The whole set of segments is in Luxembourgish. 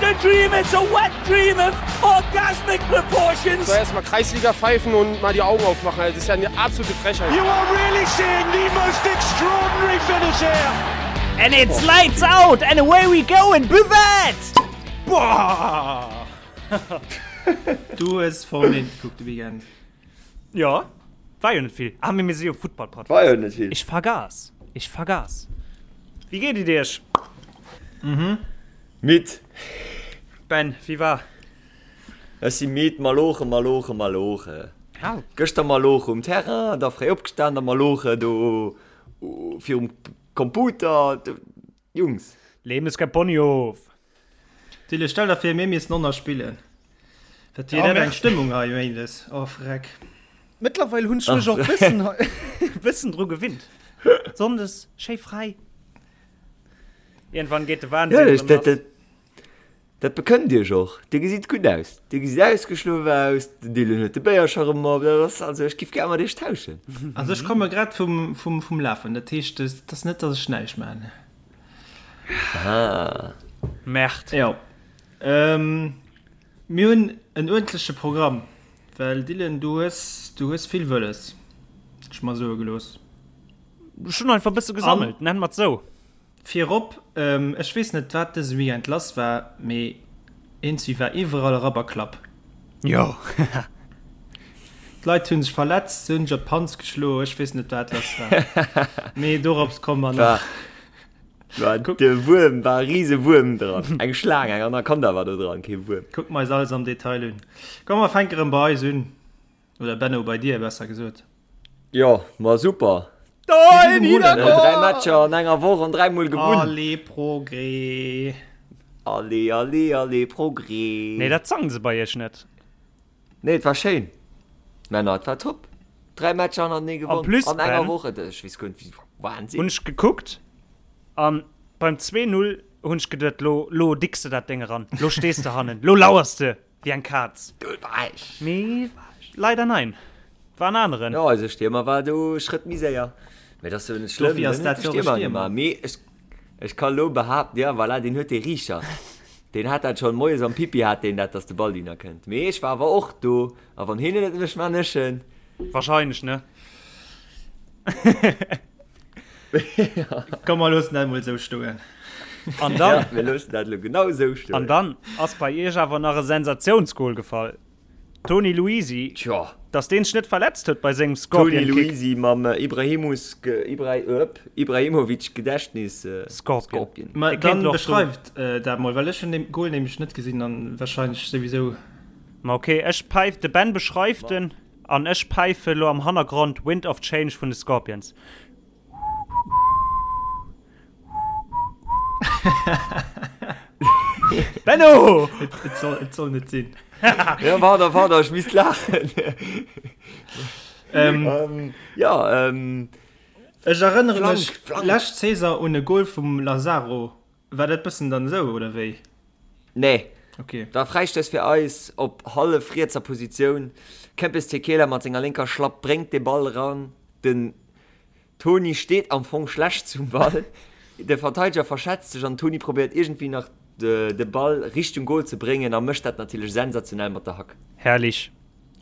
a dream, it's a wet dream of orgasmic proportions. Soll erst mal Kreisliga pfeifen und mal die Augen aufmachen, das ist ja eine absolute Frechheit. You are really seeing the most extraordinary finish here. And it's lights out and away we go in Buvette! Boah! Du hues Formel 1 gekuckt de Weekend. Jo, war jo net vill. Ah, mee mir si jo Futtball-Podcast. War jo net vill. Ech vergass, ech vergass. Wéi geet et iech? Midd. Ben, wéi war? Ech si midd. Maloche, maloche, maloche. Au. Gëschter maloche um Terrain, da fréi opgestan, da maloche do virum Computer. Jungs. Leben ist kein Ponyhof. Tille, stell der vir mir missten onnner spillen. Dat wier dat eng Stëmmung hei Méindes. Oh freck. Mëttlerweil hunn ech mech och bëssen bëssen dru gewinnt. Sonndes schéi fräi. Iergendwann geet de Wahnsinn Ja, erëm dat, lass. dat, dat bekënnt iech och. Dir gesitt gutt aus. Dir gesitt ausgeschlof aus. Den Dylan huet de Béiercher erëm op. Dat ass also, ech giff gär mat iech tauschen. Also ech komme grad vum, vum, vum Lafen. Dat heescht, et ass net, datt ech näischt maachen. Ah. Merde. Jo. Ähm, mir hunn en uerdentleche Programm, well Dylan, du hues, du hues vill wëlles, ech mer soe gelooss. Ech hunn einfach e bësse gesammelt, nennen mer et sou. Virop, ähm, ech weess net, wat dëse Weekend lass war, mee eenzi war iwwerall Rabberklapp. Jo. D'Leit hunn sech verletzt, se hunn sech op d'Panz geschloen, ech weess net, wat lass war. Mee dorops komme mer nach. War, war de Wuerm, war e rise Wuerm dran. Eng Schlaang, eng Anaconda war do dran, kee Wuerm. Kucke mer eis alles am Detail un. Komm, mer fänke rëm bei eis un. Oder Benno, bei dir, besser gesot. Jo, ma super. Dein Niederkorn! Dräi Matcher an enger Woch an dräimol gewunn. Allez Progrès! Allez, allez, allez Progrès! Nee, dat sangen se bei iech net. Nee, et war schéin, Männer, et war top. Dräi Matcher hannertenee En gewonn plus, an enger Ben, Woch, et, ech weess guer net wéi, Wahnsinn. hunn ech gekuckt an beim 2, 0 hunn ech geduet, lo, lo dicks de dat Déng eran, lo stees de hannen, lo lauers de wéi eng Kaz. Do war ech. Mee leider nein, war en aneren. Jo, eise Stiermer war do e Schrëtt méi séier. Mee dat ass jo net schlëmm, Dofir ass dann huet dat de jo och e Stiermer Stiermer. gemaach. Mee ech, ech ka lo behaapten, ja voilà, deen huet dee Riicher. Deen hat dat schonn moies am Pipi hat deen dat, dass de Ball dohinner kënnt. Mee ech war awer och do, a wann hien et net mécht, maan ech en. Wahrscheinlech, ne? Komm, mer loossen dat emol esou stoen. An dann, Ja, mir loossen dat elo genau esou stoen. An dann ass bei iech awer nach e Sensatiounsgol gefall. Toni Luisi, Tjo. dass deen sech net verletzt huet bei sengem Toni Scorpion Kick. Luisi mam Ibrahimus, Ibra, Ibrahimovic Gedächtnis Scorpion. Scorpion. Ma Dee kéint dann elo och do. beschreift dat mol, well ech hunn dee Goal nämlech net gesinn an wahrscheinlech souwisou. Ma ok, ech päif, de Ben beschreift en an ech päife lo am Hannergrond Wind of Change vun de Scorpions. Benno! Et soll, et soll net sinn. Ja, pardon, pardon, ech misst laachen. Ähm, ähm, ja, ähm, ech erënnere Flank, mech Flank. lescht Saison un e Goal vum Lazaro. War dat bëssen dann esou, oder wéi? Nee. Okay. War Fräistouss fir eis op hallef rietser Positioun. Kempes Tekela mat senger lénker Schlapp bréngt de Ball eran. Den Toni steet am Fong schlecht zum Ball. De Verteideger verschätzt sech an den Toni probéiert iergendwéi nach de Ball Richtung Goal ze bréngen a mécht dat natierlech sensationell mat der Hack. Herrlich.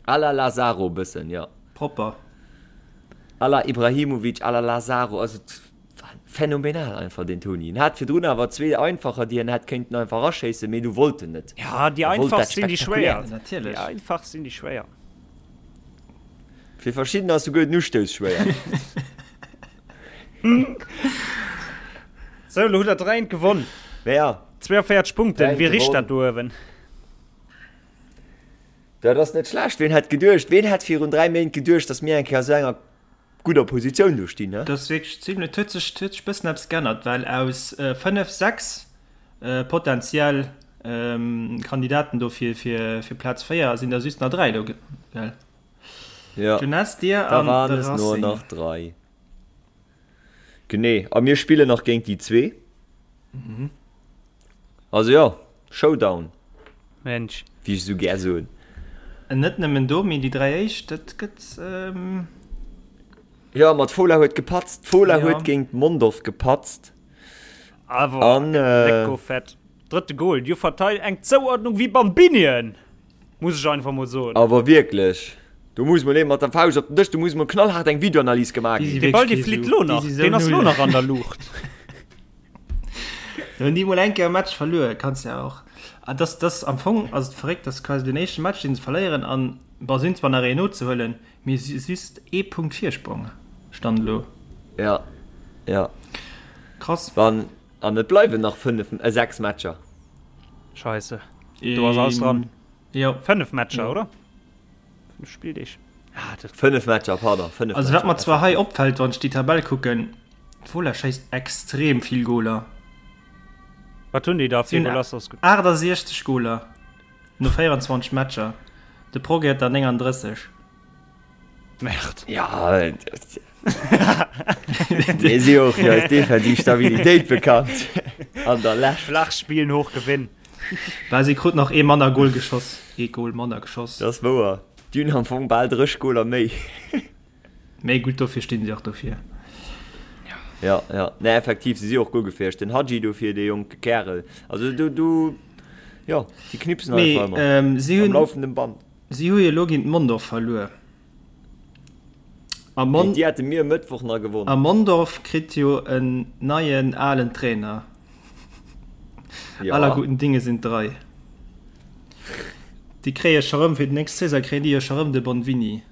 À la Lazaro bëssen, jo. Propper. À la Ibrahimovic, à la Lazaro, also phänomenal einfach deen Toni. En hat virdrun awer zwee einfacher, déi en hätt kéinten einfach eraschéissen, mee du wollt en net. Ja, déi E wollt einfach dat sinn déi schwéier. Spektakuläert. Natierlech. Déi einfach sinn déi schwéier. Fir verschiddener ass souguer den Ustouss schwéier. Sou, elo hutt der 3 eent gewonn. Mee ja. 42 Punkten, 3 wéi richt gewonnen. dat do uewen? Dat ass net schlecht. Ween hätt geduecht, ween hätt virun 3 Méint geduecht, datt mir eng Kéier a sou enger gudder Positioun do stinn, he? Dat ass wierklech zimlech, et huet sech, et huet sech bëssen eppes geännert, well aus 5, 6 potentiell Kandidaten do fir, fir, fir Plaz 4 sinn der just nach 3 elo, gell? Ja, Jeunesse, dir da an waren de es nur Racing. nach 3. Genee, a mir spillen nach géint déi zwee. Also jo, Showdown, Mensch. wéi ech esou gär soen. Net nëmmen do, mee déi 3 éischt, dat gëtt. Jo, ma d'Fola huet gepatzt. D'Fola Ja. huet géint Mondorf gepatzt. Awer An lecko fett. Drëtte Goal, déi verteilt eng Zouordnung wéi Bambinien, muss ech einfach mol soen. Awer wierklech, do muss mol ee mat der Fauscht op den Dësch, do muss mol knallhaart eng Videoanalys gemaach ginn. Dee Ball dee flitt lo nach, deen ass lo nach an der Luucht. Do hunn déi mol eng Kéier e Match verluer, kanns ja och. Ah, dass, dass am Fong ass et verréckt, dass quasi den éischte Match deen se verléieren an, bon, si hunn zwar nach een nozehuelen, mee si just ee Punkt Virsprong, Stand elo. Ja, ja. Krass. Wann. An et bleiwen nach 5, 6 Matcher. Scheisse, do ass alles dran. Jo. 5 Matcher, oder? 5 Spilldeeg. Ah, dat. 5 Matcher, pardon, 5 Also wat mer zwar hei opfält, wann ech déi Tabell kucken, d'Fola schéisst extrem vill Goler. Wat hunn déi da fir Goler? 68 Goler no 24 Matcher. De Progrès huet der 39. Merde. Ja, mir si och fir eis defensiv Stabilitéit bekannt an der Lescht. Flach spillen, hoch gewinn. Well si krut nach ee manner Goal geschoss, ee Goal manner geschoss. Dat ass wouer. Déi hunn am Fong bal 30 Goaler méi. Méi gutt, dofir stinn si och dofir. Ja, ja. Nee, effektiv, si si och guer gefäerlech. Den Hadji dofir, dee jonke Kärel. Also do, do, jo, déi knipsen einfach ëmmer. Mee si hunn. Am laufenden Band. Si hu jo elo géint Mondorf verluer. A Mon Géint déi hate mir e Mëttwoch nach gewonn. A Mondorf kritt jo en neien alen Trainer. Ja. Aller guten Dinge sind drei. Déi kréie scho rëm fir déi nächst Saison kréien déi jo scho rëm de Bonvini.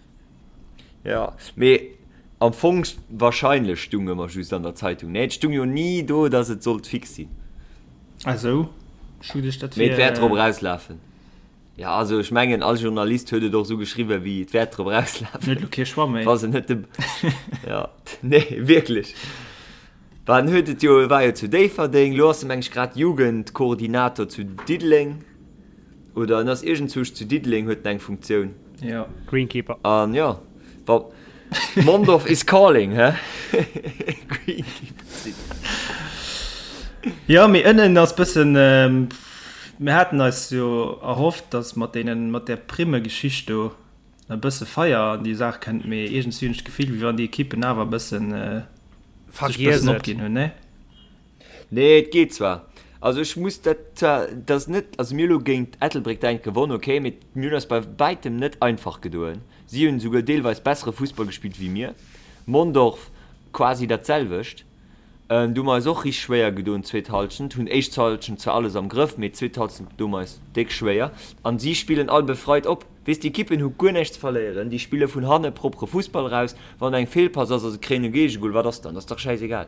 Ja, mee am Fong wahrscheinlech stung ëmmer just an der Zeitung. Nee, et stung jo ni do, datt et sollt fix sinn. Ah sou, ech hu geduecht dat Mee et wier. wäert drop erauslafen. Ja, also ech mengen all Journalist huet et och esou geschriwwen, wéi et wäert drop erauslafen. Huet elo kee Choix méi. Wa se net de Ja, nee, wierklech. Well en huet et jo, e war jo zu Déifferdeng, elo ass e meng ech grad Jugendkoordinator zu Diddeleng oder en ass iergendzwousch zu Diddeleng, huet en eng Funktioun. Jo. Greenkeeper. An jo, wa Mondorf is calling, hä? Greenkeeper sinn. Jo, mee ënnen ass bëssen. Mir haten eis jo erhofft, dass mat deenen, mat där Primme-Geschicht do e bësse Feier an déi Saach kënnt, mee iergendswéi hunn ech d'Gefill, wéi wann déi Ekippen awer e bëssen, sech e bëssen opginn hunn, nee? Nee, et geet zwar. Also ech muss dat zwar, et ass net, also mir hu lo géint Ettelbréck däint gewonn, okay, mee mir hunn eis bei wäitem net einfach gedoen. Si hunn esouguer deelweis bessere Fussball gespillt wéi mir. Mondorf quasi dat selwecht. Do hu mer eis och richteg schwéier gedoen d'zweet Halschent. Hunn éischt Halschent zwar alles am Grëff, mee d'zweet Halschent doe mer eis déck schwéier. An si spillen all befreit op. Weess, déi Ekippen hu guer näischt ze verléieren. Déi spille vun hanne propere Fussball eraus. Wann eng Feelpass ass a se kréien e Géigegol, wat ass dann? Dat ass dach schäisegal.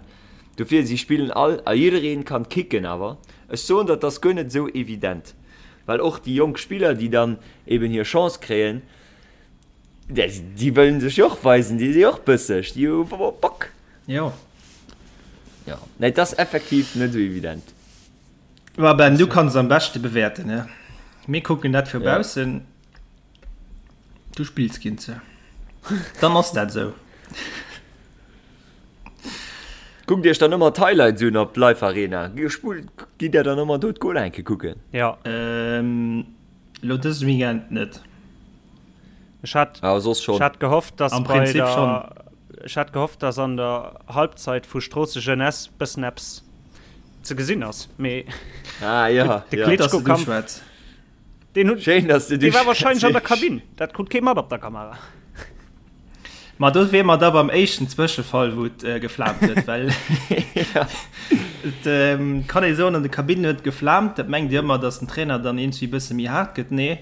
Dofir, si spillen all a jiddereen kann kicken. Awer ech soen der, et ass guer net esou evident, well och déi jonk Spiller, déi dann eben hir Chance kréien, déi wëllen sech jo och weisen, déi si och bësseg, déi hu Bock. Jo. Jo, nee, et ass effektiv net esou evident. Ma Ben, du kanns am beschte bewäerten, ne? Mir kucken dat vu baussen. Du spills géint se. Dann ass dat esou. Kuckt iech dann ëmmer d'Highlights un op Live Arena. Spullt, gitt der dann ëmmer do d'Goler eng Kéier kucken. Jo. Elo dëse Weekend net. Ech hat, Awer soss schonn. ech hat gehofft, dass Am bei Prinzip der, schonn. ech hat gehofft, dass an der Halbzeit vu Stroosse Jeunesse bëssen eppes ze gesinn ass, mee Ah ja, de ja. Gutt, dass du du Klitschko-Kampf, schwätz. deen hunn, Schéin, dass du du dee war wahrscheinlech an der schwätz. Kabinn. Dat krut kee mat op der Kamera. Ma do wier mer da beim éischten Zwëschefall, wou et geflaamt huet, well et kann ee soen, an de Kabinnen huet et geflaamt. Dat mengt Dir ëmmer, datt den Trainer dann iergendwéi e bësse méi haart gëtt. Nee,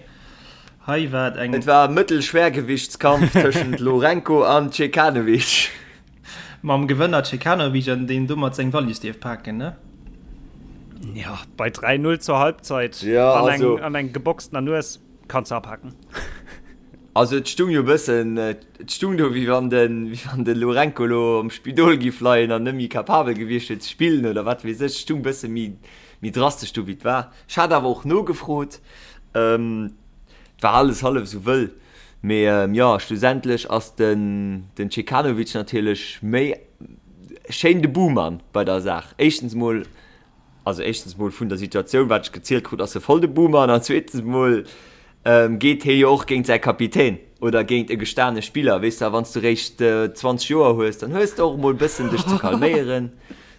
hei war et eng. Et war e Mëttelschwergewichtskampf tëschent Lourenco an Cekanovic. Mam Gewënner Cekanovic an deen domat seng Wallis dierf paken, ne? Jo, bei 3, 0 zur Halbzeit an eng geboxtener Nues kanns de apaken. Also et stung jo bëssen, et stung do wéi wann de, wéi wann de Lourenco lo am Spidol giff leien an net méi capabel gewiescht wier ze spillen oder wat weess ech. Et stung bësse méi, méi drastesch do wéi et war. Ech hat awer och nogefrot, et war alles hallef esou wëll. Mee jo, schlussendlech ass den, den Cekanovic natierlech méi schéin de Buhmann bei der Saach. Éischtens mol Also éischtens mol vun der Situatioun, wat ech gezielt krut, ass e voll de Boomer an zweetens mol geet hie jo och géint säi Kapitän oder géint e gestane Spiller, weess de. A wann s du réischt 20 Joer hues, dann hues de och mol bëssen dech ze calméieren,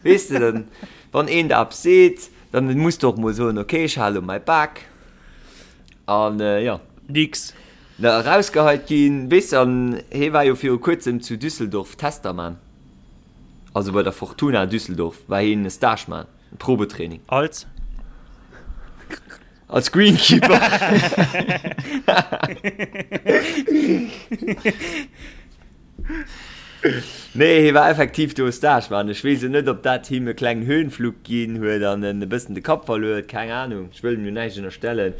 weess de. Dann, wann een der eppes seet, Dann muss de och mol soen, okay, ech hale lo mäi Bak. An jo. Nix. Na, erausgeheit ginn, weess de, an hee war jo viru kuerzem zu Düsseldorf Tester man. Also bei der Fortuna Düsseldorf war heen e Stage man, e Probetraining. Als? Als Greenkeeper. Nee, hie war effektiv do Stage man. Ech weess jo net, ob dat him e klengen Höhenflug ginn huet an en e bëssen de Kapp verluer huet, keng Ahnung. Ech wëll him jo näischt ënnerstellen,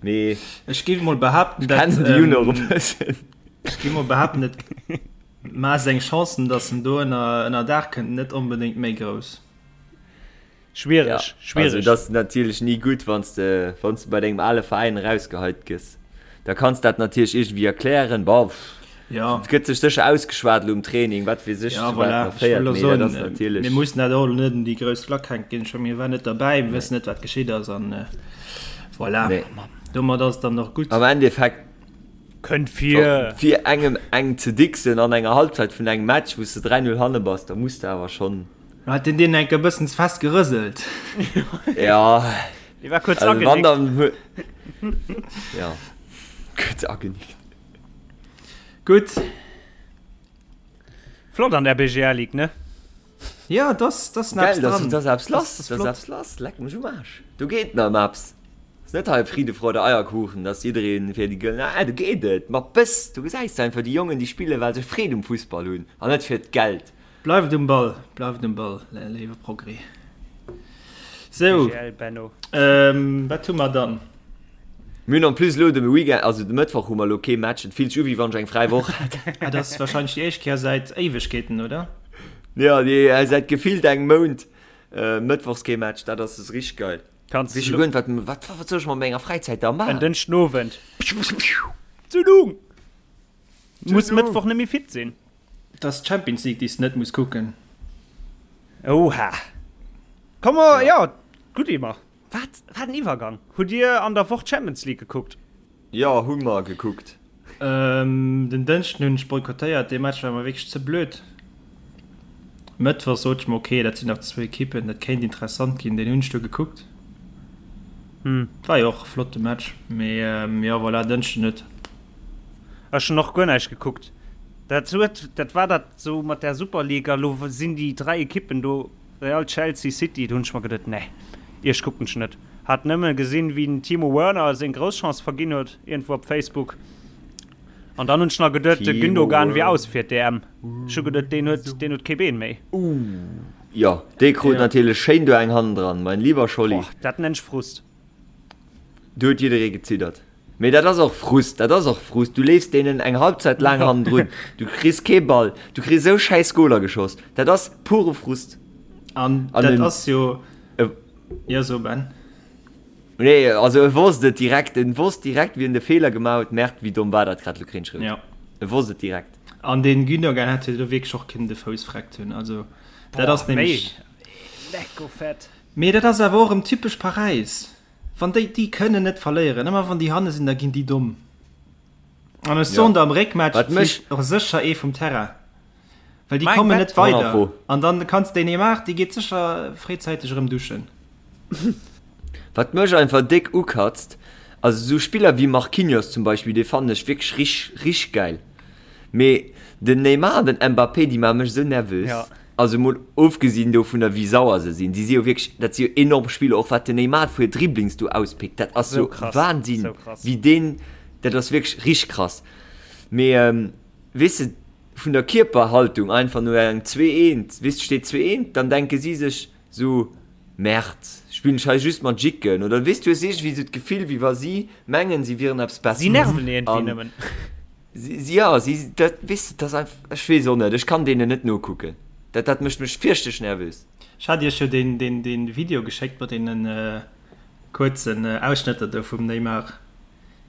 mee Ech géif mol behaapten, ech kennen de Jun och e bëssen. Ech géif mol behaapten, et ma seng Chancen, datt en do ënner ënner Daach kënnt, net onbedéngt méi grouss. Schwiereg, ja, schwiereg. Also, dat ass natierlech ni gutt, wann s de, wann s de bei dengem ale Veräin erausgeheit gëss. Da kanns dat natierlech iergendwéi erklären. Bon, ja. Et gëtt sech sécher ausgeschwat elo um Training, wat weess ech, ja, zu wat voilà. nach féiert, mee dat ass natierlech. Mir mussen dat och elo net un déi grouss Klack hänken. Ech mir waren net derbäi, mir wëssen net, wat geschitt ass an äh, voilà. Nee. Domat ass et dann och gutt. Am Endeffekt Kënnt vir. Fir engem eng ze dixen an enger Halbzeit vun engem Match, wou s de 3-0 hanne bass, da muss de awer schonn. Hat den deen enk e bëssen ze fest gerëselt? Ja. Dee war kuerz Also wann agenickt. dann hu ja kuerz agenickt. Gutt. Flott an der BGL Ligue, ne? Ja, dass dass Geil, eppes dass dran. dass eppes lass, Das ass dass flott. eppes lass. Leck mech um Aarsch. Do geet nach ëm eppes. Ass net hei Friede, Freude, Eierkuchen, dass jiddereen fir déi gëllen, ah do geet et mat Bëss. Do gesäis de einfach déi Jongen, déi spillen, well se Freed um Fussball hunn an net fir d'Geld. Bleift um Ball, bleift um Ball, léiwe Progrès. Sou, BGL Benno. ähm, wat hu mer dann? Mir hunn en plus elo de Weekend, also de Mëttwoch hu mer elo kee Match. Et fillt sech u wéi wann ech eng fräi Woch hätt. Ah, dat ass wahrscheinlech déi éischt Kéier säit Éiwegkeeten, oder? Jo, déi säit gefillt engem Mount mëttwochs kee Match. Dat ass richteg geil. Kanns Weess jo guer net, wat, wat, wat soll ech mat menger Fräizäit da En maachen? Dënschdenowend. Zündung! Muss Mëttwoch net méi fit sinn. Et ass d'Champions League, déi s de net muss kucken. Oha. Komm mer, jo, gutt Iwwer. Wat, wat en Iwwergang. Hutt Dir an der Woch d'Champions League gekuckt? Jo, hu mer gekuckt. Den Dënschden hunn ech boykottéiert, dee Match war mer wierklech ze blöd. Mëttwoch sot ech mer, ok, dat sinn nach zwou Ekippen, dat kéint interessant ginn. Deen hunn ech du gekuckt. War jo och e flotte Match, mee jo, voilà, Dënschden net. Ech hunn och guer näischt gekuckt. Dat huet, dat war dat sou mat där Super League a lo sinn déi 3 Ekippen do, Real, Chelsea, City, do hunn ech mer geduet, nee, iech kucken ech net. Hat nëmme gesinn, wéi den Timo Werner seng grouss Chance verginn huet, iergendwou op Facebook. An dann hunn ech nach geduet, de Gündogan wier aus fir d'EM. Ech hu geduet, deen huet, deen huet kee Been méi. Ooh, jo, dee krut natierlech schéin do eng hannendran, mein lieber Scholli. Boah, dat nenn ech Frust. Do huet jidderee geziddert. Mee dat ass och Frust, dat ass och Frust. Du leefs deenen eng Halbzeit laang hannendrun, du kriss kee Ball, du kriss esou schäiss Goler geschoss. Dat ass pure Frust. An dat ass jo, jo so Ben. Nee, also e wosst et direkt, en wosst direkt wien de Feeler gemaach huet. Merde, wéi domm war dat grad, lo kréien ech rout. E wosst et direkt. An dee Gündogan hätt jo do wierklech och kënnen de Fouss vreckt hunn. Also dat ass nämlech. Lecko fett. Mee dat ass awer och erëm typesch Paräis. Wann déi, déi kënnen net verléieren. Ëmmer wann déi hanne sinn, da ginn déi domm. An ech soen der, am Réckmatch flitt och sécher ee vum Terrain. Well déi kommen net weider. An dann kanns de Neymar, dee geet sécher fréizäiteg erëm duschen. Wat mech einfach déck ukatzt, also esou Spiller wéi Marquinhos zum Beispill, dee fannen ech wierklech rich, rich gäil. Mee den Neymar an den Mbappé, déi maache mech esou nervös. Also mol ofgesinn dovunner wéi sauer se sinn, si si jo wierklech, dat si jo enorm Spiller, och wat den Neymar vu Dribblings do auspickt, dat ass jo Wahnsinn, wéi deen, dat ass wierklech richteg krass. Mee weess de, vun der Kierperhaltung einfach no engem 2, 1, weess de, steet 2, 1, dann denke si sech sou, Merde, spillen ech hei just mat Jicken oder weess du hues iergendwéi sou d'Gefill, wéi wa si mengen, si wieren eppes Besseres. Si nerven iergendwéi nëmmen. Si, jo, si, dat, weess de, dat ass einfach, ech weess och net, ech kann deenen net nokucken. Dat, dat mécht mech fierchterlech nervös. Ech hat iech jo deen, deen, deen Video geschéckt mat deenen kuerzen Ausschnëtter do vum Neymar.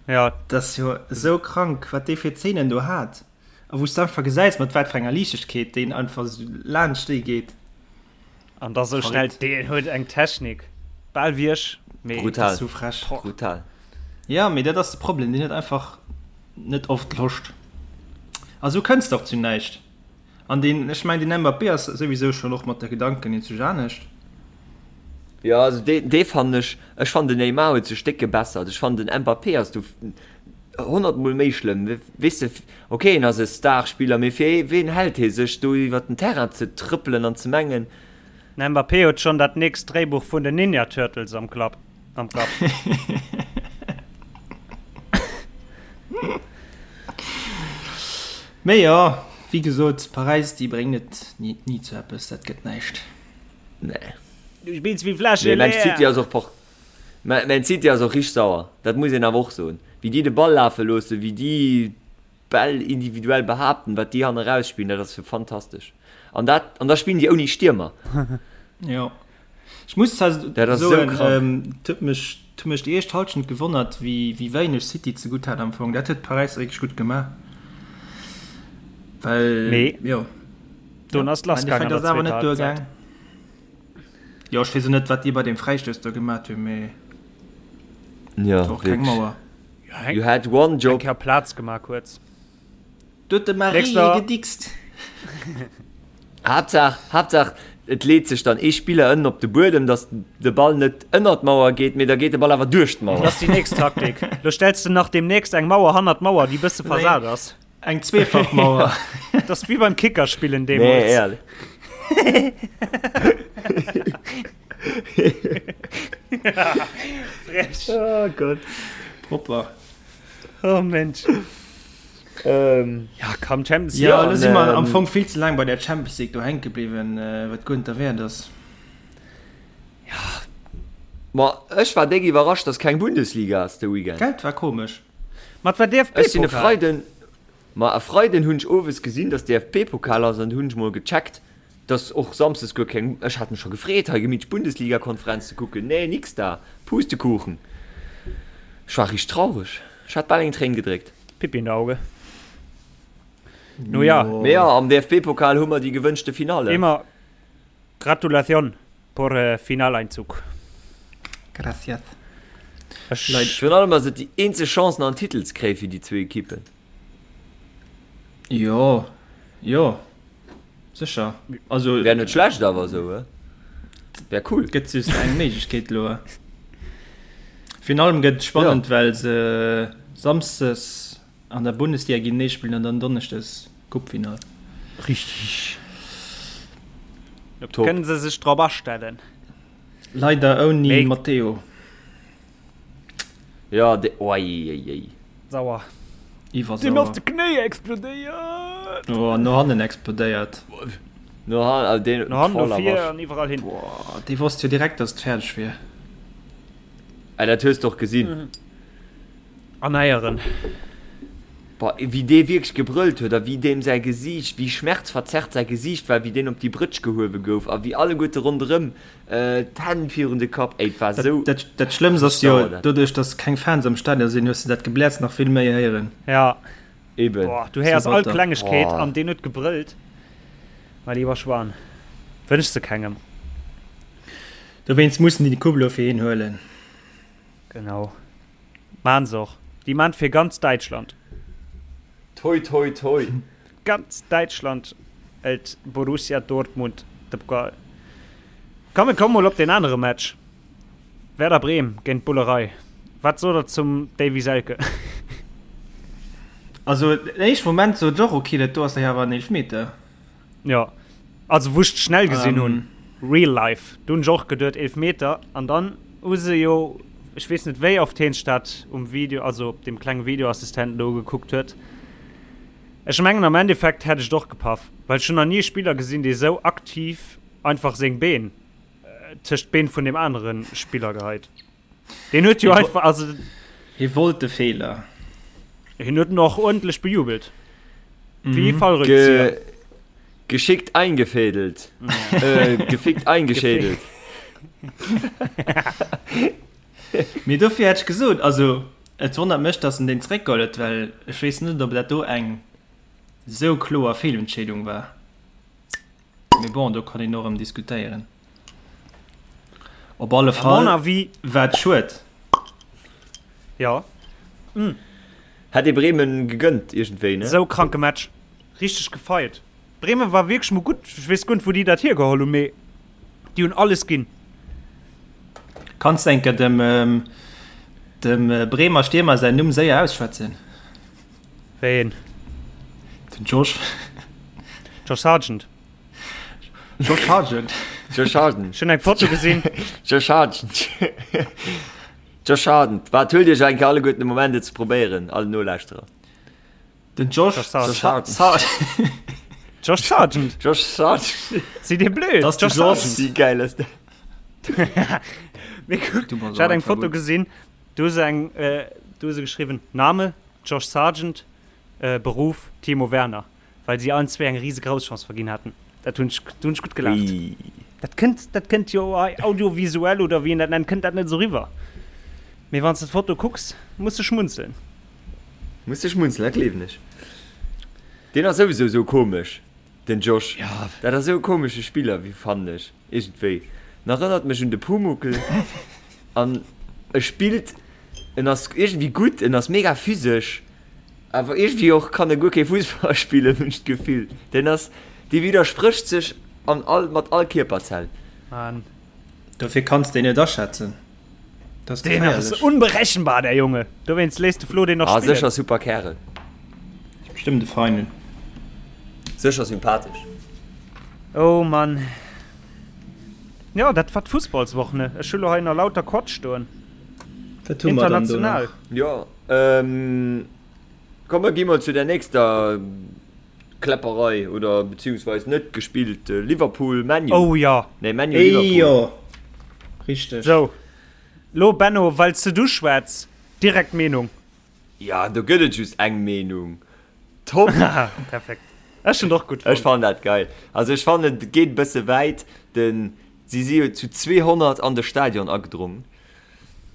Jo. Dat ass jo esou krank, wat dee fir Zeenen do hat. A wou s de einfach gesäis, mat wat fir enger Liichtegkeet deen einfach esou laanscht déi geet. An da sou schnell, deen huet eng Technik, bal wéi ech, mee. Brutal. Sou frech. Brutal. Ja, mee dat ass de Problem, deen huet einfach net oft Loscht. A sou kënns de och zu näischt. An deen, ech mengen, den Mbappé ass souwisou schonn och mat de Gedanken iergendwou anescht. Jo, also dee, dee fannen ech, ech fannen den Neymar huet sech déck gebessert. Ech fannen den Mbappé ass do honnertmol méi schlëmm. Weess de, ok en ass e Starspiller, mee fir ween hält hie sech do iwwert den Terrain ze trëppelen an ze mengen. Den Mbappé huet schonn dat nächst Dréibuch vun den Ninja Turtles am Klapp, am Kapp. Mee jo, wéi gesot, Paräis déi bréngen et ni zu eppes, dat gëtt näischt. Nee. Du spills wéi Fläsche Nee, Man City leer. ass och por Man Man City ass och richteg sauer, dat muss een awer och soen. Wéi déi de Ball lafe loossen, wéi déi d'Bäll individuell behaapten, wat déi hanne raus spillen, dat ass jo fantastesch. An dat an da spillen déi ouni Stiermer. Jo. Ech muss zwar Dat ass esou soen, krank. et huet mech et huet mech déi éischt Hallschent gewonnert, wéi wéi wéineg City zegutt hat am Fong. Dat huet Paräis wierklech gutt gemaach, well Mee jo. Dunn ass Am lass gaang Endeffekt an ass der et awer zweeter net Halbzeit. duergaang. Jo, ech weess och net, wat déi bei deem Fräistouss do gemat hunn, mee Ja, och keng wierklech. Mauer. Ja, You had one eng job. Kéier Plaz gemaach kuerz. Do huet de Marie Nächster. gedickst. Haaptsaach, Haaptsaach, et leet sech dann ee Spiller ënnen op de Buedem, datt de Ball net ënnert d'Mauer geet, mee da geet de Ball awer duerch d'Mauer. Dat ass déi nächst Taktik. Lo stells de nach deemnächst eng Mauer hannert d'Mauer, déi bësse versat ass. Eng zweefach Mauer. Dat ass wéi beim Kickerspillen deemools. Nee, ehrlech. Frech. Oh Gott. Propper. Oh Mensch. Ähm. Ja, komm, Champions League. Ja, lo si mer ähm, am Fong vill ze laang bei der Champions League do hänke bliwwen, äh, wat guer net derwäert ass. Ma ech war déck iwwerrascht, dass keng Bundesliga ass de Weekend. Gell, war komesch. Mat war Ech sinn e DFB-Pokal. Freiden, ma e Freiden hunn ech owes gesinn, dass DFB-Pokal ass an hunn ech mol gecheckt, dass och samsdes guer keng, ech hat mech scho gefreet hei gemittlech Bundesliga-Konferenz ze kucken, nee nix da, Pustekuchen. Ech war richteg traureg, ech hat bal eng Tréin gedréckt. Pipi in der Auge. No ja. Mee jo, am DFB-Pokal hu mer déi gewënschte Finale. Immer Gratulation por Finaleinzug. Gracias. Ech. Leit. Virun allem ass et déi eenzeg Chance nach en Titel ze kréie fir déi zwou Ekippen. Jo, jo, sécher. Also. Wär net schlecht awer esou, he? Wär cool. Gëtt just eng Méiglechkeet elo. Virun allem gëtt et spannend, well se samsdes An der Bundesliga géintenee spillen an dann Donneschdes Coupefinall. Richtig. Top. Kënnen se sech drop astellen. Leider ouni Mee- Matteo. Ja, de, oi, ei, ei. Sauer. Iwwersauer. Deen ass de Knéi explodéiert. Oh, no hannen explodéiert. No han, also den, No hannen, no voller vir Wasch. an iwwerall hin. Boah, dee wosst jo direkt, dass et fäerdeg wier. Ah, dat hues de och gesinn. An Eieren. Boah, wéi dee wierklech gebrëllt huet a wéi deem säi Gesiicht, wéi schmerzverzerrt säi Gesiicht war, wéi deen op déi Brëtsch gehuewe gouf a wéi alleguerte ronderëm d'Hänn virun de Kapp, ey, et war esou. Dat, dat Schlëmmst ass jo, Sauer dat. doduerch dass keng Fans am Stadion sinn, hues de dat Gebläers nach vill méi héieren. Ja. Eben. Boah, du héiers So all batter. Klengegkeet Boah. an deen huet gebrëllt. Mein lieber Schwan. Wënschs de kengem. Dowéinst mussen déi de Coupe elo fir hien huelen. Genau. Maan se och. Déi maan fir ganz Däitschland. Toi toi toi. Ganz Däitschland hëlt Borussia Dortmund de Pokal. Komm mir komme mol op deen anere Match. Werder Bremen géint Bullerei. Wat sot der zum Davy Selke? Also den éischte Moment sot ech och, ok, dat do ass dach awer en Eelfmeter. Jo, also wou ech et schnell gesinn hunn, real life, do hunn ech och geduet Eelfmeter an dann hu se jo, ech weess net wéi oft heen sech dat um Video, also op deem klenge Videoassistenten do ugekuckt huet. Ech mengen am Endeffekt hätt ech et och gepaff, well ech hunn nach ni e Spiller gesinn, dee sou aktiv einfach seng Been tëscht d'Been vun deem anere Spiller geheit. Deen huet jo einfach, also. Hie wollt de Feeler. Hien huet en och uerdentlech bejubelt. Wéi ee Fallrückzieher. Ge geschickt eingefädelt. Äh, gefickt eingeschädelt. Mee dofir hätt ech gesot, also et wonnert mech, datt en deen zeréckgeholl huet, well ech weess net, ob dat do eng esou kloer Feelentscheedung war. Mee bon, do kann een och erëm diskutéieren. Op alle Fall war et schued. Jo. Hätt ee Bremen gegönnt iergendwéi, ne? Sou kranke Match. Richteg gefeiert. Bremen war wierklech mol gutt. Ech weess guer net wou déi dat hiergeholl hunn, mee déi hunn alles ginn. Kanns de enker dem dem Bremer Stiermer säin Numm séier ausschwätzen? Wéi een? Den Josh. Josh Sargent. Josh Sargent. Josh Sargent. Ech hunn eng Foto gesinn. Josh Sargent. Josh Sargent. Waart, huelt iech eng Kéier alleguerten de Moment et ze probéieren, all Nolauschterer. Den Josh Sargent. Josh Sargent. Josh Sargent. Sidd dir blöd? Das Josh Sargent. Wéi geil ass dat? Mee kuck, ech hat eng Foto gesinn, do hu se eng, do hu se geschriwwen, Name, Josh Sargent, Beruff, Timo Werner, well si allen zwéi eng rise Grousschance verginn haten. Dat hunn ech, do hunn ech gutt gelaacht. Dat kënnt, dat kënnt jo hei audiovisuell oder wéi een dat nennt, kënnt dat net esou riwwer. Mee wann s de d'Foto kucks, muss de schmunzeln. Muss de schmunzeln, dat gleewen ech. Deen ass souwisou esou komesch, den Josh. Dat ass esou e komesche Spiller, wéi fannen ech iergendwéi. En erënnert mech un de Pumuckl an e spillt, en ass iergendwéi gutt, en ass mega physesch, awer iergendwéi och kann e guer kee Fussball spillen, hunn ech d'Gefill. Deen ass, dee widdersprécht sech an all, mat all Kierperzell. Mann. Dofir kanns de en net aschätzen. Dat ass Deen ass geféierlech. unberechenbar, der Junge. Dowéinst léisst de Flo deen och Ah, spillen. sécher super Kärel. Bestëmmt e Feinen. Sécher sympathesch. Oh Mann. Jo, dat war d'Fussballswoch, ne? Ech hu lo hei nach lauter Quatsch stoen. Wat hu mer dann do International. nach? Jo, ähm, komm mer gi mol zu der nächster Kläpperei oder beziehungsweis net gespillt, Liverpool, ManU. Oh jo. Nee, ManU, Liverpool. Ey jo, richteg. Sou, lo Benno, well s de du schwätz, direkt Meenung. Ja, do gëtt et just eng Meenung. Top! Perfekt. Ech hunn et och gutt Ech fonnt. fannen dat geil. Also ech fannen et geet e bësse wäit, den, si si jo zu 200 an de Stadion agedrongen.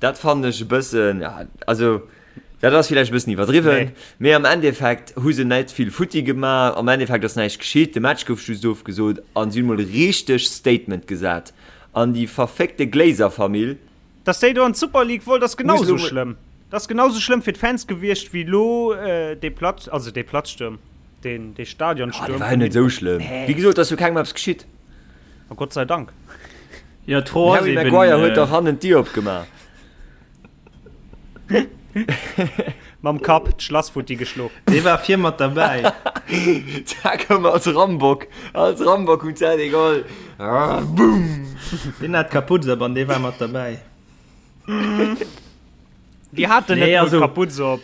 Dat fannen ech e bëssen, ja, also dat ass villäicht e bëssen iwwerdriwwen, mee am Endeffekt hu se net vill futti gemaach, am Endeffekt ass näischt geschitt, de Match gouf just ofgesot an si hunn mol e richteg Statement gesat an déi verféckte Glazer-Famill. Dass déi do an d'Super League wollt ass genau Muss esou lo mol. schlëmm. Dat ass genau esou schlëmm fir d'Fans gewiescht wéi elo dee Platz, also dee Platzstuerm, deen dee Ah, dee Stadionstuerm war jo vun net esou schlëmm. Nee. Wéi gesot, et ass jo kengem eppes geschitt. A Gott sei Dank. Jo, d'Fro Den ass Harry eben. Maguire huet dach hannen d'Dier opgemaach. Mam Kapp d'Schlass futti geschlo. Dee war vir mat derbäi. Da koum als Rambock, als Rambock um Zäit egal. Boom! Deen hat d'Kaputz op an dee war mat derbäi. Déi haten Nee, net mol also- d'Kaputz op.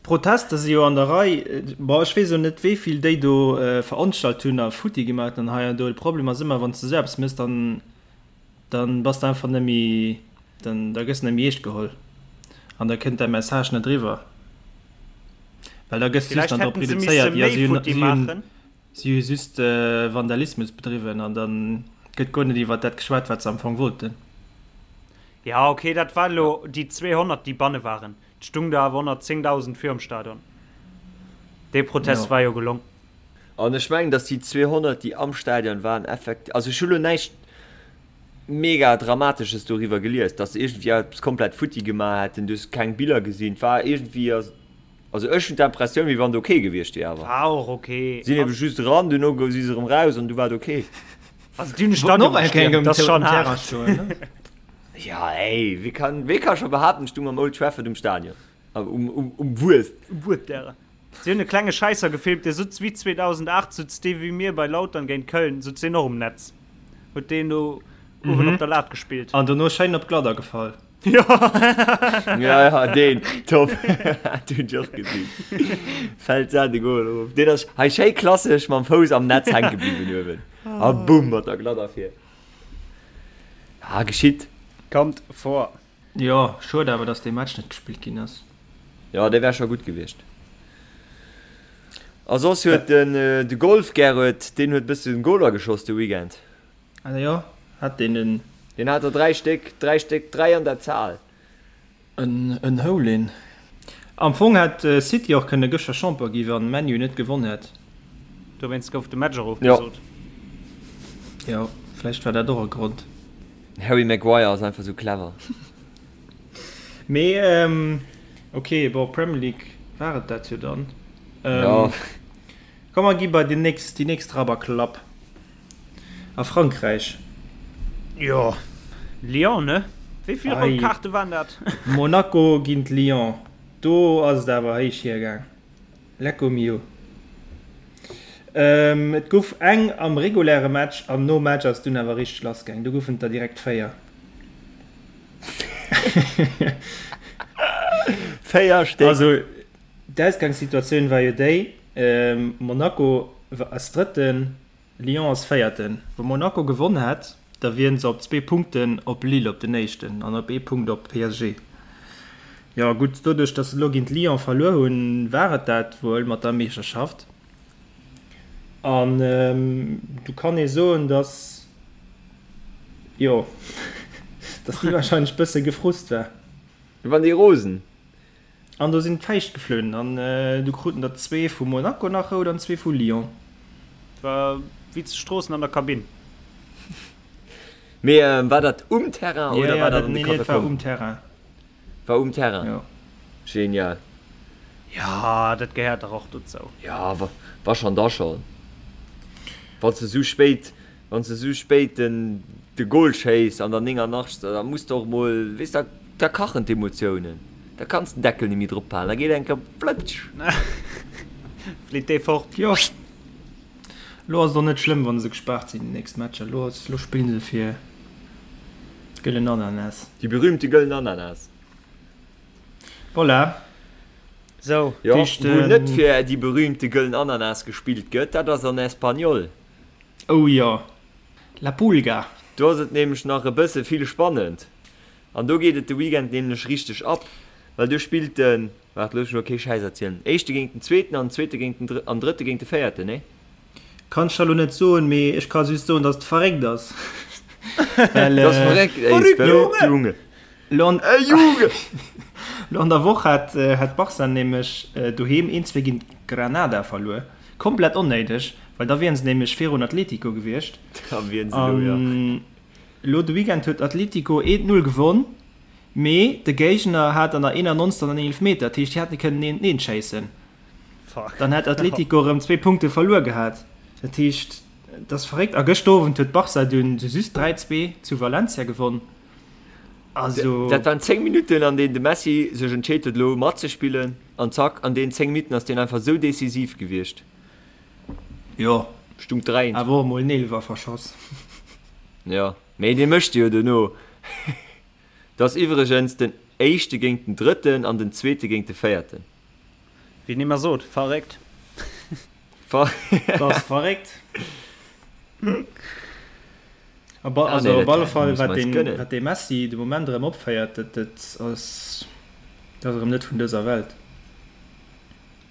D'Protester si jo an der Rei. Bon, ech weess elo net, wéi vill déi do veranstalt hunn a futti gemaach hunn hei an do. De Problem ass ëmmer, wann s de esou eppes méchs, dann, dann bass de einfach net méi, dann, da gëss de net méi eescht geholl an da kënnt däi Message net eriwwer, well da gëss de just Villäicht dann drop hätten se misse reduzéiert, jo, méi si hunn, futti si hunn, maachen. si hu just Vandalismus bedriwwen an dann gëtt guer net iwwert dat geschwat, wat se am Fong wollten. Ja, okay, dat war elo déi 200, déi banne waren. Et stung der awer 110.000 virum Stadion. Dee Protest Jo. war jo gelong. An ech mengen, datt déi 200, déi am Stadion waren, effekt-, also ech hu lo näischt mega Dramatesches doriwwer gelies, datt se iergendwéi eppes komplett futti gemaach hätten. Du hues keng Biller gesinn. Et war iergendwéi, also ech hunn d'Impressioun, wéi wann et ok gewiescht wier awer. War och ok. Sinn ebe just eran, duerno si se erëm raus an du war et ok. Also déi hunn de Wollten Stadion och eng Kéier gestiermt, um dat ass schonn Terrain haart. stoen, ne? Ja ey, wee kann, wee ka scho behaapten, ech stung am Old Trafford um Stadion, um, um, um Wues. Um Wuertdärer. Si hunn e klenge Schäisser gefilmt, dee sutz wéi 2008, sutz dee wéi mir bei Lautern géint Köln, sutz deen och um Netz. Huet deen do uewen op der Lat gespillt. An dono schéin op d'Gladder gefall. Jo. Ja, ja, deen, top. Dat hunn ech och gesinn. Fält se de Goal erof. Deen ass hei schéi klassesch mam Fouss am Netz hänke bliwwen uewen. A bumm, mat der Gladder vir. Ah, geschitt. Kommt vor. Jo, schued awer dass dee Match net gespillt ginn ass. Jo, dee wär scho gutt gewiescht. A soss huet den de Golf Gerrit, deen huet bëssen Goler geschoss de Weekend. Ah jo, hat deen en. Deen hat der 3 Stéck, 3 Stéck, 3 an der Zahl. En Hole-in. Am Fong hätt City och kënne gëschter Champion gi wann ManU net gewonn hätt. Dowéinst gouf de Match och ofgesot. Jo, vläicht war dat och e Grond. Den Harry Maguire ass einfach sou clever. Mee ok, bon Premier League war et dat jo dann. Jo. Komm mer gi bei déi nächst, déi nächst Rabberklapp a Frankräich. Jo. Lyon, ne? Wéi vill rout Kaarte waren dat? Monaco géint Lyon, do ass et awer héich hiergaang. Lecco mio. Et gouf eng am reguläre Match an nom Match ass et dunn awer richteg lass gaang. Do goufen et der direkt 4. 4 Stéck. Also d'Ausgangssituatioun war jo déi, Monaco ass Drëtten, Lyon ass Véierten. Wa Monaco gewonn hätt, da wieren se op zwee Punkten op Lille op den Éischten an op ee Punkt op PSG. Jo gutt, doduerch datt se elo géint Lyon verluer hunn, war et dat wuel mat der Meeschterschaft. An do kann ee soen, datt, jo, datt déi warscheinlech bësse gefrust war. Wann déi rosen. An do sinn d'Fäischt geflunn an du kruten der zwee vu Monaco nach rout an zwee vu Lyon. War wéi zu Stroossen an der Kabinn. Mee war dat um Terrain oder war dat an de Katakomben? Nee, dat war um Terrain. War um Terrain? Jo. Genial. Jo, dat gehéiert dach och dozou. Jo, wa schonn, da schonn. Wann s de esou spéit Wann s de sou spéit den de Goal schéiss an der 89. Da muss de och mol, weess da da kachen d'Emotiounen, da kanns den Deckel nemmi drop halen, da geet eng Kéier flëtsch. Flitt dee fort. Jo, lo ass et och net schlëmm wann se gespaart sinn déi nächst Matcher. Lo ass, lo spillen se fir d'gëllen Ananas. Déi berühmte gëllen Ananas. Voilà. Sou. Jo, wou net fir déi berühmte gëllen Ananas gespillt gëtt, dat ass an Espanyol. Oh jo, La Pulga! Do ass et nämlech nach e bësse vill spannend an do geet et de Weekend nämlech richteg ab, well do spillt den, waart looss mech elo kee Schäiss erzielen, éischte géint den zweeten an den zweete géint den drë an drëtte géint de véierten, nee? Kann ech der lo net soen, mee ech ka just soen, dass et verréckt ass. Well, Dat ass verréckt, ey, Verrückt, verréckt, Junge! Lo an, Ey, Junge! lo an der Woch hat, hat Barca nämlech doheem 1, 2 géint Granada verluer. Komplett onnéideg, well da wieren se nämlech virun Atletico gewiescht. Da wieren se elo, jo. An elo de Weekend huet Atletico 1, 0 gewonn, mee de Géigner hat an der 91. en Eelefmeter, dat heescht, déi hätte kënnen 1, 1 schéissen. Fuck. Dann hätt Atletico erëm zwee Punkte verluer gehat. Dat heescht, et ass verréckt. A gëschter Owend huet Barca dunn just 3, 2 zu Valencia gewonn. Also. Dat waren 10 Minutten, an deenen de Messi sech entscheet huet, elo matzespillen. An zack, an deenen 10 Minutten ass deen einfach esou decisiv gewiescht. Jo, Stung 3. Awer och emol en Eelwer verschoss. Jo, mee dee mécht e jo dono. Dat ass iwwregens den éischte géint den drëtten an den zweete géint de véierten. Wéi een ëmmer sot, verréckt. Dat ass verréckt. Also op alle Fall, wat deen, wat dee Messi de Moment erëm opféiert, dat, dat ass, dat ass erëm net vun dëser Welt.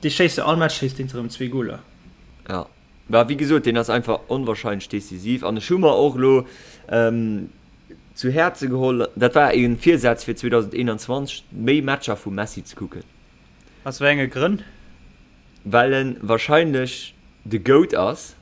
Dee schéisst jo all Match schéisst deen erëm zwee Goler. Ja, mä wéi gesot, deen ass einfach onwahrscheinlech decisiv an ech hu mer och elo zu Häerze geholl, dat war e Virsaz fir 2021, méi Matcher vum Messi ze kucken. Aus wéi enge Grënn? Well en wahrscheinlech de Goat ass.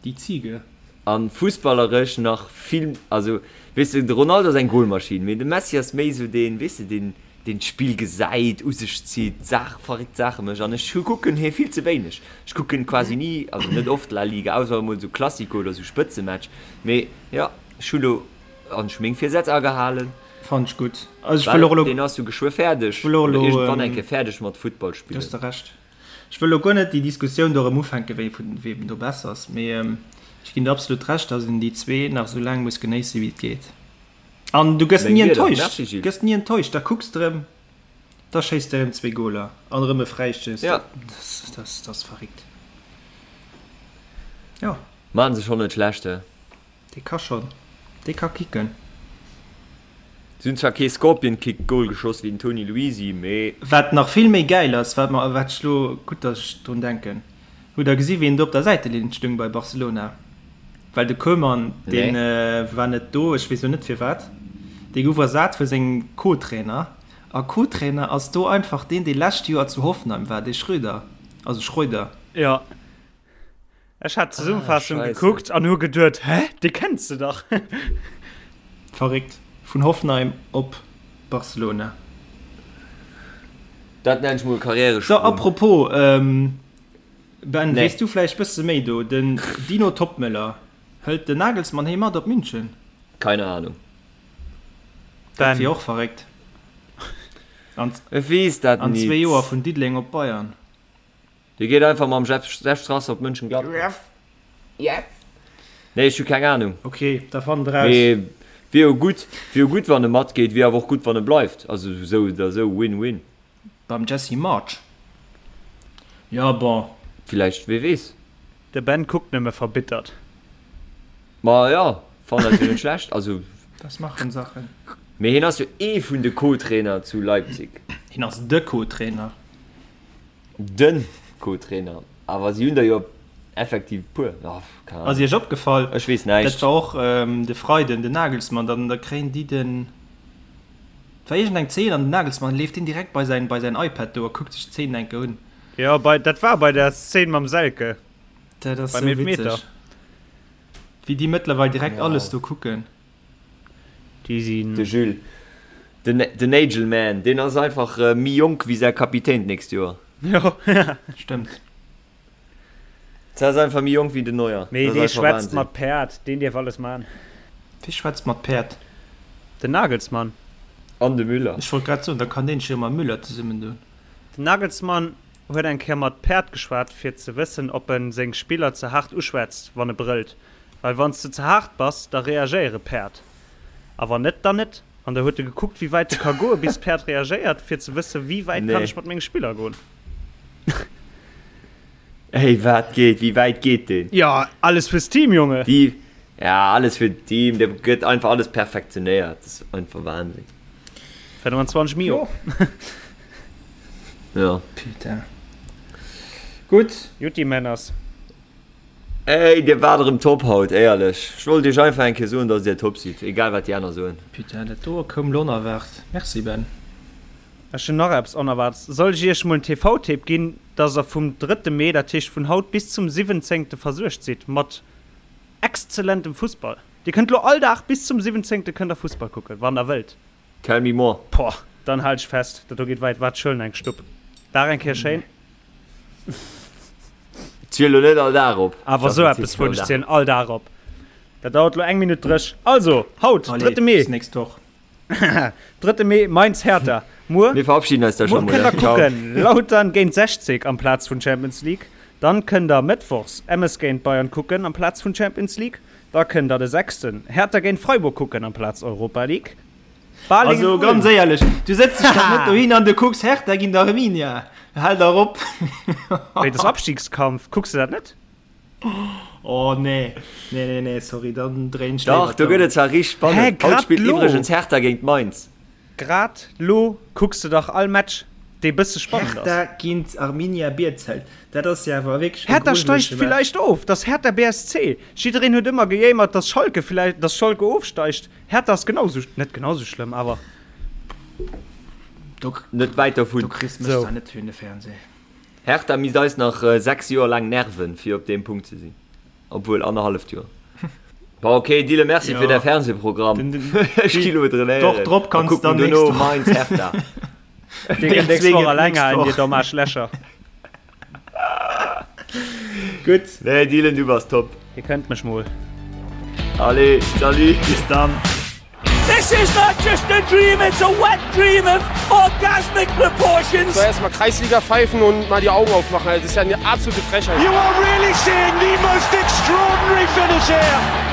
Déi Ziege. An fussballeresch nach vill, also weess de, de Ronaldo ass eng Golmaschinn, mee de Messi ass méi esou deen, weess de, deen deen d'Spill gesäit, u sech zitt, Saach, verréckt Saache mécht. An ech kucken hie vill ze wéineg. Ech kucken quasi ni, also net oft La Liga, ausser emol esou Classico oder esou Spëtzematch. Mee jo, ech hu lo, an ech hu meng Virsätz agehalen. Fannen ech gutt. Also ech wëll och elo. Deen ass jo geschwë fäerdeg, oder iergendwann eng Kéier fäerdeg mat Futtball spillen. Du hues de Recht. Ech wëll elo guer net déi Diskussioun do erëm ufänken, wéi vun weem do besser ass, mee ech ginn der absolut Recht, datt een déi zwee nach esou laang muss genéissen, wéi et geet. An du gëss ni enttäuscht, du gëss ni enttäuscht, da kucks de erëm, da schéisst de erëm zwee Goler an erëm e Fräistouss, dat ass verréckt. Jo. Maachen se schonn net schlecht, he? Dee ka schonn, dee ka kicken. Si hunn zwar kee Scorpion Kick Goal geschoss wéi den Tony Luisi, mee. Wat nach vill méi gäil ass, wat mer, wat ech lo, gutt dass ech drun denken, hutt der gesi wien do op der Säitelinn stung bei Barcelona? Well de Koeman, dee war net do, ech weess lo net firwat, dee gouf ersat vu sengem Co-Trainer a Co-Trainer ass do einfach deen, dee lescht Joer zu Hoffenheim war, dee Schröder, also Schreuder. Jo. Ech hat d'Zesummefaassung ah, gekuckt an hu geduet, hä, dee kenns de dach. Verréckt. Vun Hoffenheim op Barcelona. Dat nenn ech mol Karrieresprung. So, apropos, ähm, Ben, nee. weess du vläicht bësse méi do? Den Dino Toppmöller, hëlt den Nagelsmann hee mat op München? Keine Ahnung. Dat wier och verréckt. An Ech weess dat an nit. zwee Joer vun Diddeleng op Bayern. Dee geet einfach mam Jeff Jeff Strasser op Mönchengladbach. Nee, ech hu keng Ahnung. Ok, da fannt eraus. Mee wier jo gutt, wier jo gutt wann e matgeet, wier awer och gutt wann e bleift. Also esou oder esou win-win. Beim Jesse Marsch? Jo, bon. Villäicht, wee weess. De Ben kuckt nëmme verbittert. Ma jo, fannen dat jo net schlecht. Also. Das machen Sachen. Mee hien ass jo ee vun de Co-Trainer zu Leipzig. Hien ass de Co-Trainer. Den Co-Trainer. Awer si hunn der jo effektiv e puer. Oh, keng Ass Ahnung. iech opgefall, Ech weess dat näischt. war och de Freiden, den Nagelsmann, dann da kréien déi den, et war iergendeng Zeen an den Nagelsmann leeft deen direkt bei säin, bei säin iPad do a kuckt sech d'Zeen eng Kéier un. Jo, bei, dat war bei der Szene mam Selke. Dat ass Beim sou Elfmeter. witzeg, wéi déi mëttlerweil direkt Wow. alles do kucken. Déi sinn. De Jules, den, den Nagelman, deen ass einfach méi jonk wéi säi Kapitän d'nächst Joer. Jo. Stëmmt. Dat ass einfach méi jonk wéi den Neuer. Mee Dat dee ass einfach schwätzt Wahnsinn. mat Päerd, deen dierf alles man. Wie schwätzt mat Päerd? Den Nagelsmann. An de Müller. Ech wollt grad soen, da kann deen sech jo mam Müller zesummen doen. Den Nagelsmann huet eng Kéier mat Päerd geschwat fir ze wëssen ob en seng Spiller ze haart uschwätzt wann e brëllt, well wanns de ze haart bass da reagéiere Päerd a wann net dann net. An da huet e gekuckt wéi wäit e ka goe bis d'Päerd reagéiert fir ze wësse wéi wäit kann Nee. ech mat menge Spiller goen. Ey wat geet, wéi wäit geet deen? Jo alles fürs Team Junge. Déi, ja alles fir d'Team, dee gëtt einfach alles perfektionéiert, dat ass einfach Wahnsinn. 25 Mio. Ja. Putain. Gutt. Jutti Männers. Ey dir waart erëm top haut, éierlech. Ech wollt iech einfach eng Kéier soen, dass dir top sidd, egal wat déi aner soen. Putain, dat do koum lo onerwaart. Merci Ben. Ech hunn nach eppes Onerwaartes. Soll ech iech mol en TV-Tipp ginn, dass der vum drëtte Mee, dat heescht vun haut bis zum siwwenzéngte versuergt sidd mat exzellentem Fussball. Dir kënnt lo all Dag bis zum siwwenzéngte kënnt der Fussball kucken, wann der wëllt. Tell me more. Poah, dann halt ech fest, dat do geet weit. Waart, ech huelen eng Stupp. Dag eng Kéier schéin. Ziel lo net all Dag op. Awer sou eppes vun, ech zielen all Dag op. Dat dauert lo eng Minutt dréch. Also, haut, Allez, drëtte Mee. bis nächst Woch. Drëtte Mee, Mainz, Hertha. Muer, Mir verabschieden eis da muer schon mol. kënnt der Ciao. kucken, Lautern géint 60 amplaz vun Champions League. Dann kënnt der mëttwochs MS géint Bayern kucken amplaz vun Champions League. Da kënnt der de sechsten Hertha géint Freiburg kucken amplaz Europa League. Balingen, Also ganz Ulm. éierlech, du sëtz dech dach net dohin an du kucks Hertha géint Arminia. Hal dach op! Wéi, das Abstiegskampf, kucks de dat net? Oh nee, nee, nee, nee, sorry, dann dréin ech Dach, léiwer do gëtt d'Ouer. et zwar richteg Hä, spannend. Haut grad spillt lo? iwwregens Hertha géint Mainz. Grad lo kucks de dach all Match, dee bësse spannend ass. Hertha géint Arminia Bielefeld, dat ass jo awer wierklech e Hertha steigt grujelege Match. villäicht of, dass Hertha BSC. Jiddereen huet ëmmer gejéimert, dass Schalke villäicht, dass Schalke ofsteigt. Hertha ass genau sou, net genau sou schlëmm, awer. Do, Net wäit dovun. do kriss mech Sou. zwar net fir un de Fernseh. Hertha misst eis nach 6 Joer laang nerven, fir op deem Punkt ze sinn. Obwuel, annerhalleft Joer. Bon, ok, Dylan, merci fir däi Fernsehprogramm. Ech gi lo trainéieren. D'Woch drop kanns dann duerno Mainz Hertha. Dir kënnt nächst Woch alleng halen, dir domm Aarschlächer. Gutt. Nee, Dylan, du bass top. Dir kënnt mech mol. Allez, salut. Bis dann. This is not just a dream, it's a wet dream of orgasmic proportions. So erstmal Kreisliga pfeifen und mal die Augen aufmachen. Das ist ja eine absolute Frechheit. You are really seeing the most extraordinary finish here.